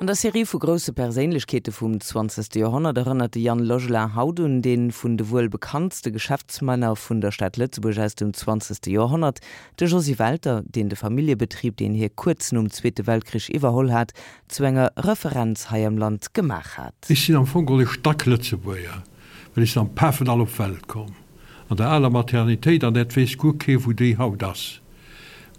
An der Serie vu grousse Perséinlechkeete vum zwanzegste Joerhonnert erënnert de Yann Logelin haut un dee vun de wuel bekanntste Geschäftsmänner vun der Stad Lëtzebuerg aus dem zwanzegste Joerhonnert, de Josy Welter, deen de Familljebetrib, deen hie kuerz nom Zweete Weltkrich iwwerholl hat, zu enger Referenz hei am Land gemaach hat. Ech sinn am Fong geholl e Stacklëtzebuerger, well ech sinn am Pafendall op d'Welt komm, an der aler Maternitéit, an dat weess guer kee wou déi haut ass.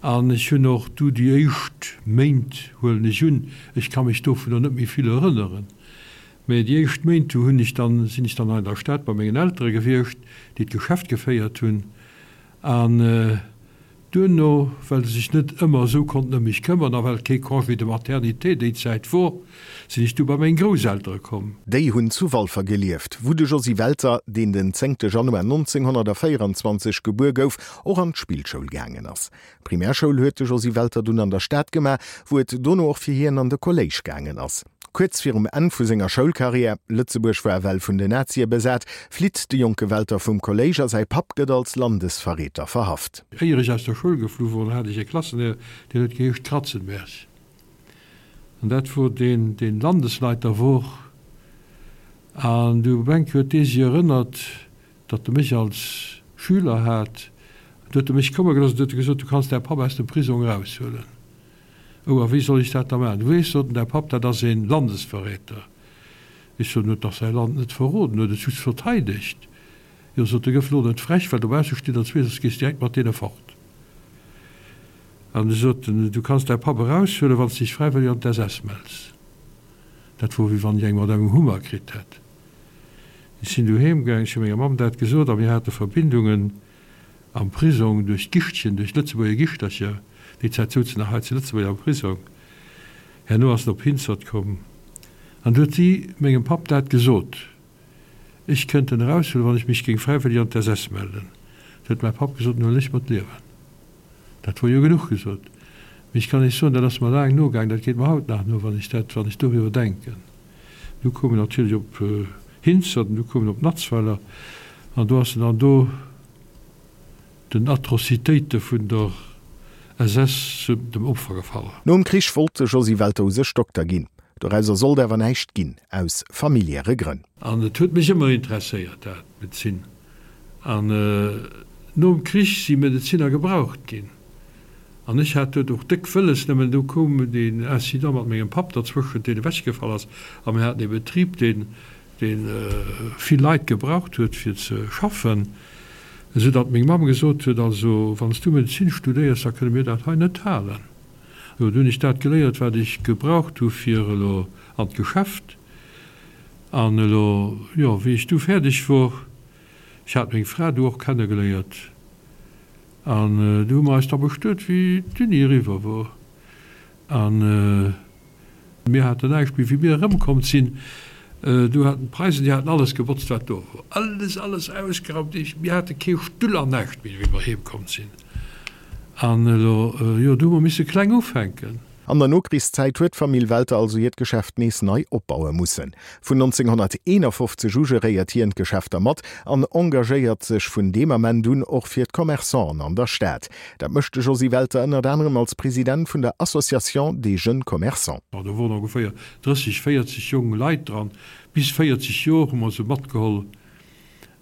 An ech hunn och du déi éischt Méint, huelen ech un, ech ka mech dovunner net méi vill erënneren, mä déi éischt Méint, du hunn ech dann, sinn ech dann hei an der Stad bei mengen Eltere gewiescht, déi d'Geschäft geféiert hunn. An duerno, well se sech net ëmmer esou konnten ëm mech këmmern a well kee Congé de maternité déi Zäit wor, sinn ech du bei meng Grousseltere komm. Déi hunn zu Walfer gelieft, wou de Josy Welter, deen den zéngte Januar 1924 gebuer gouf, och an d'Spillschoul gaangen ass. D'Primärschoul huet de Josy Welter dunn an der Stad gemaach, wou et dono och fir hien an de Kolléisch gaangen ass. Kuerz virum Enn vu senger Schoulkarriär, Lëtzebuerg war ewell vun den Nazie besat, flitt de jonke Welter vum Kolléisch a säi Papp gëtt als Landesverräter verhaft. Éier ech aus der Schoul geflu wor, hat ech e Klassenlehrer, deen huet geheescht Kratzenberg. An dat wor deen, deen Landesleiter wor. An du op eng Kéier huet dee sech erënnert, datt e mech als Schüler hat, du huet e mech komme gelooss an du huet e gesot, du kanns däi Papp aus dem Prisong eraushuelen. Oh, a wéi soll ech dat da maachen? Du weess, sot en, däi Papp, dat ass ee Landesverräter. Ech sot, en huet dach säi Land net verroden, en huet et just verteidegt. Jo, sot e, gëff elo net frech, well dobausse stinn der zwee, soss gees direkt mat deene fort. An du sot en, du kanns däi Papp eraushuelen, wann s de dech fräiwëlleg an d'SS mells. Dat wor, wéi wann ech eng mat engem Hummer kritt hätt. Ech sinn du heem gaang, ech hu menger Mamm dat gesot a mir hate Verbindungen am Prisong duerch d'Gichtchen, duerch d'Lëtzebuerger Gichtercher. Déi Zäit souzen nach hei zu Lëtzebuerg am Prisong. Herno ass en op Hinzert komm an du huet si mengem Papp dat gesot, ech kënnt en eraushuelen, wann ech mech géing fräiwëlleg an d'SS mellen. Du huet mäi Papp gesot, en huelen ech mer d'Liewen. Dat wor jo genuch gesot. Mee ech kann Iech soen, dat ass mer laang nogaang, dat geet mer haut nach no, wann ech dat, wann ech doriwwer denken. Du koum en natierlech op Hinzert an du koum en op Natzweiler an do ass en dann do den Atrocitéite vun der SS zu dem Opfer gefall. Nom Krich wollt de Josy Welter u sech Dokter ginn. Dorauser sollt awer näischt ginn, aus familiäre Grënn. An et huet mech ëmmer interesséiert, dat, d'Medezin. An nom Krich si Medezinner gebraucht ginn. An ech hat duet och déck wëlles, nëmmen du koum deen Incident mat mengem Papp derzwëschent, deen ewechgefall ass, a mir haten ee Betrib, deen, deen vill Leit gebraucht huet fir ze schaffen, esou datt meng Mamm gesot huet, also wann s du Medezin studéiers, da kënne mir dat hei net halen. Jo, du hunn ech dat geléiert, wat ech gebraucht hu fir elo an d'Geschäft. An elo, jo, wéi ech du fäerdeg wor, ech hat meng Fra du och kennegeléiert, An du hu mer eis da bestuet, wéi d'Uni eriwwer wor. A mir haten näischt méi. Wéi mir erëmkomm sinn, du haten d'Preisen, déi haten alles gebotzt, wat do wor. Alles, alles ausgeraumt. Mir hate kee Stull an näischt méi, wéi mer heemkomm sinn. An elo, jo, du hu mer misse kleng ufänken. An der Nokrichszäit huet d'Famill Welter also hiert Geschäft nees nei opbaue mussen. Vun 1951 u geréiert hien d'Geschäfter mat an engagéiert sech vun deem Ament un och fir d'Commerçanten an der Stad. Dat mécht de Josy Welter ënnert anerem als President vun der Association des jeunes commerçants. Do woren ongeféier 30, 40 jong Leit dran. Bis 40 Jor hu mer se matgeholl.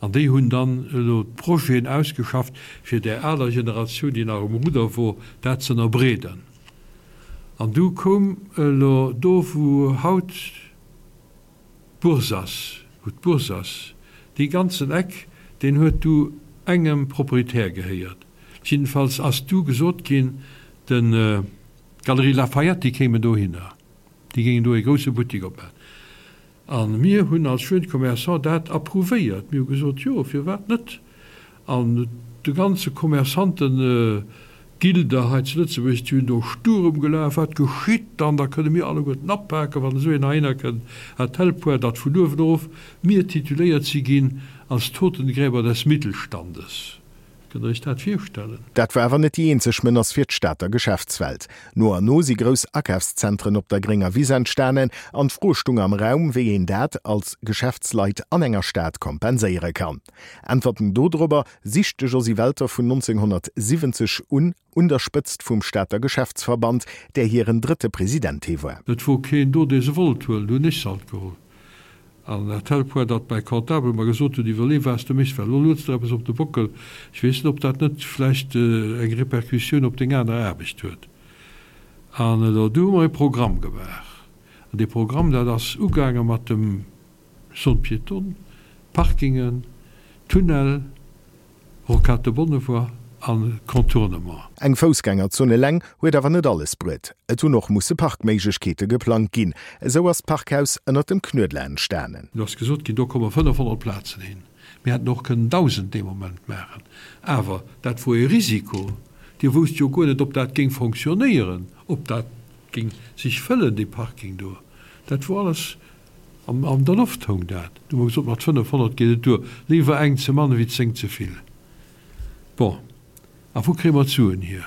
An déi hunn dann elo d'Projeten ausgeschafft, fir där aler Generatioun, déi nach um Rudder wor, dat z'ënnerbreeden. An du koum elo do, wou haut d'Bourse ass, wou d'Bourse ass, dee ganzen Eck, deen huet du engem Proprietär gehéiert. Jiddefalls ass du gesot ginn, den, d'Galerie Lafayette, déi kéimen dohinner, déi géingen do ee grousse Buttek opmachen. A mir hunn als Jeunes Commerçants dat approuvéiert. Mir hu gesot, jo, firwat net? An de ganze Commerçanten-Gilde hei zu Lëtzebuerg, déi hunn do Sturm gelaf, Wat geschitt dann? Da kënne mir alleguerten apaken, wann esou een heihinner kënnt, à tel point, datt vun uewen erof mir tituléiert si ginn als Totengräber des Mittelstandes. Kënnt Der Iech dat virstellen? Dat war awer net déi eenzeg Menace fir d'Stater Geschäftswelt. No an no si grouss Akafszentren op der grénger Wiss entstanen an d'Fro stung am Raum, wéi een dat als Geschäftsleit an enger Stad kompenséiere kann. Äntwerten dodrobber sicht de Josy Welter vun 1970 un un der Spëtzt vum Stater Geschäftsverband, där hiren drëtte President hie war. Et wor keen do, dee se wollt huelen, du hunn ech se alt geholl. An à tel point, datt mäi Comptable mer gesot huet, Iwwerlee wat s de méchs, well elo lueds der eppes op de Bockel. Ech weess net, ob dat net vläicht eng Répercussioun op deng aner Aarbecht huet. An elo, du hu mer e Programm gemaach. An dee Programm, dat ass ugaange mat dem Zone piétonne, Parkingen, Tunnel, Rocade de Bonnevoie an Contournement. Eng Foussgängerzon eleng huet awer net alles bruet. Et hunn och musse Parkméiglechkeete geplangt ginn. Esou ass d'Parkhaus ënnert dem Knuedler entstanen. Do ass gesot ginn, do komme 500 Plazen hin. Mir hätten och kënnen 1.000 dee Moment maachen. Awer dat wor ee Risiko. Dir wousst jo guer net, ob dat géing fonctionnéieren, ob dat géing sech fëllen, dee Parking do. Dat wor alles An der Loft houng dat. Du hu mer gesot, mat 500 geet et duer. Léiwer eng ze mann ewéi 10 ze vill. Bon, a wou kréie mer d'Suen hier?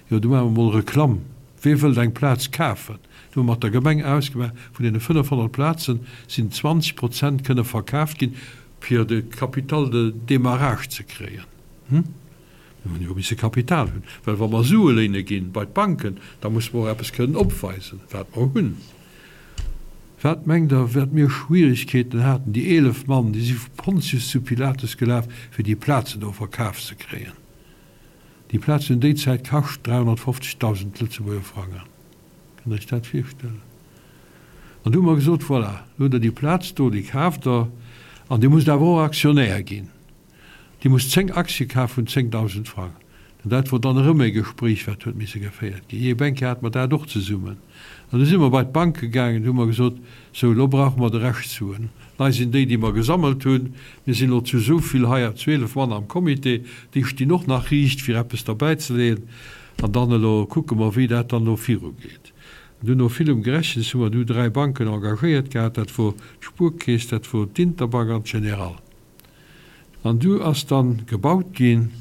Jo, du maache mer mol Reklamm. Wee wëllt eng Plaz kafen? Du hu mer mat der Gemeng ausgemaach, vun deene 500 Plazen sinn 20 Prozent kënne verkaaft ginn, fir de Capital de démarrage ze kréien. Hm? Mir hunn jo misse Kapital hunn, well wa mer Sue léine ginn bei d'Banken, da musse mer och eppes kënnen opweisen, wat mer hunn. Wat mengt Der, wat mir Schwierigkeeten haten, déi 11 Mann, déi si vu Pontius zu Pilatus gelaf, fir déi Plazen do verkaf ze kréien. Déi Plazen hunn déi Zäit kascht 350.000 Lëtzebuerger Frangen. Kënnt Der Iech dat virstellen? An du hu mer gesot, Voilà, elo hutt Der déi Plaz do, déi kaaft Der, an Dir musst awer och Aktionär ginn. Dir musst 10 Aktie kafe vun 10.000 Frang. An dat wor dann erëm e Gespréich, wat huet misse geféiert ginn. Jee, Bänke hate mer dat och zesummen. An du si mer bei d'Banke gaangen, du hu mer gesot, Sou, elo brauche mer de Rescht Suen. Hei sinn déi, déi mer gesammelt hunn. Mir sinn elo zu esou vill hei, 12 Mann am Comité, déi stinn och nach riicht, fir eppes derbäizeleeën. An dann elo kucke mer, wéi dat dann elo virugeet. An du no villem Gerechens hu mer du dräi Banken engagéiert gehat, dat wor d'Spuerkeess, dat wor d'Interbank an d'Generale. An du ass dann gebaut ginn,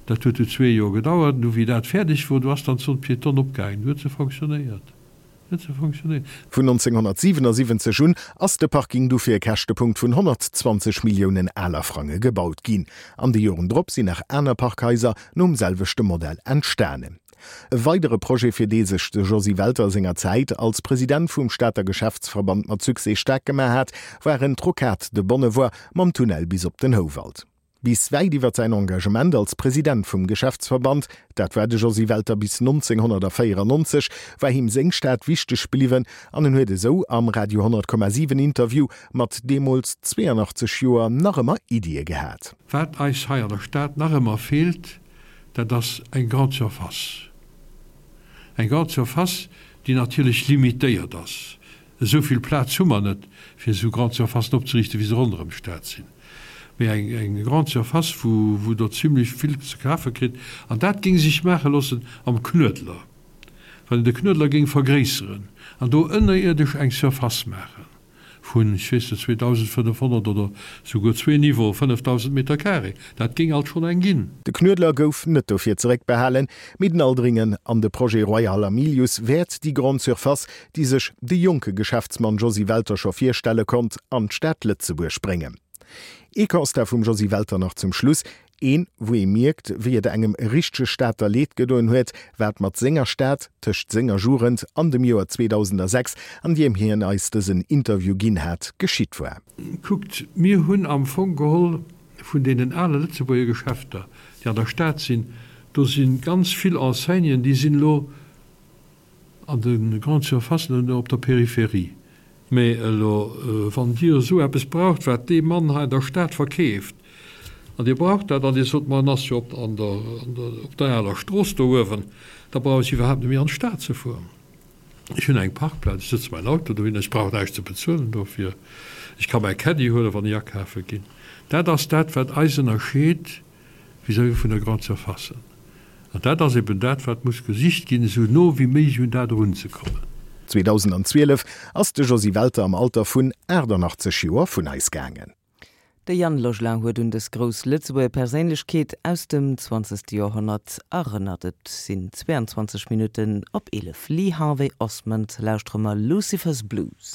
dat huet du zwee Joer gedauert, an du wéi dat fäerdeg wor, du ass dann d'Zone piétonne opgaangen, du huet se fonctionnéiert, huet se fonctionnéiert. Vun 1977 un ass de Parking du fir e Käschtepunkt vun 120 Milliounen aler Frange gebaut ginn. An de Joren drop sinn nach aner Parkhaiser nom selwechte Modell entstanen. E weidere Projet, fir dee sech de Josy Welter senger Zäit als President vum Stater Geschäftsverband mat Succès staark gemaach hat, waren d'Rocade de Bonnevoie mam Tunnel bis op den Houwald. Bis wäit iwwer säin Engagement als President vum Geschäftsverband, dat war de Josy Welter bis 1994, war him seng Stad wichteg bliwwen an en huet esou am Radio 100,7 Interview mat deemools 82 Joer nach ëmmer Iddie gehat. Wat eis hei an der Stad nach ëmmer feelt, Dat ass eng Grande surface. Eng Grande surface, déi natierlech limitéiert ass. Esou vill Plaz hu mer net, fir esou Grande surfacen opzeriichten, wéi se ronderëm d'Stad sinn. Mee eng, eng Grande surface, wou, wou Der zimlech vill ze kafe kritt. An dat géing sech maache loossen am Knuedler, wann een de Knuedler géing vergréisseren an do ënnerierdesch eng Surface maachen. vun, ech weess net, 2.500 oder souguer zwee Niveaue, 5.000 Meter carré, dat géing alt schonn eng ginn. De Knuedler gouf net dofir zeréckbehalen, mee den Aldringen an de Projet Royal Hamilius wäert déi Grande Surface, déi sech de jonke Geschäftsmann Josy Welter scho virstelle konnt, an d'Stad Lëtzebuerg bréngen. Ee Constat vum Josy Welter nach zum Schluss, Een, wou ee mierkt, wéi et engem richtege Stater Leed gedoen huet, wat mat senger Stad tëscht senger Jugend an dem Joer 2006, an diem hien eis dësen Interview ginn hat, geschitt war. Kuckt, mir hunn am Fong geholl vun deenen ale Lëtzebuerger Geschäfter, déi an der Stad sinn, do si ganz vill Enseignen, déi sinn elo An de Grandes Surfacen an op der Peripherie. Mä elo, wann Dir esou eppes braucht, wat dee Mann hei an der Stad verkeeft, an Dir braucht dat, an Dir sot, ma en ass jo op an der, op der aler Strooss do uewen, da brauch ech iwwerhaapt net méi an d'Stad ze fueren. Ech hunn eng Parkplaz, ech sëtze mäin Auto dohin, ech brauch näischt ze bezuelen dofir, ech ka mäi Caddy huelen, wann ech akafe ginn. Dat ass dat, wat eis ënnerscheet vis-à-vis vun der Grande Surface. An dat ass eben dat, wat muss gesicht ginn, esou no wéi méiglech un dat erunzekommen. 2012 ass de Josy Welter am Alter vun 88 Joer vun eis gaangen. De Yann Logelin huet un dës grouss Lëtzebuerger Perséinlechkeet aus dem zwanzegste Joerhonnert erënnert. Et sinn 22 Minutten op 11. Lee Harvey Osmond lauschtere mer Lucifer's Blues.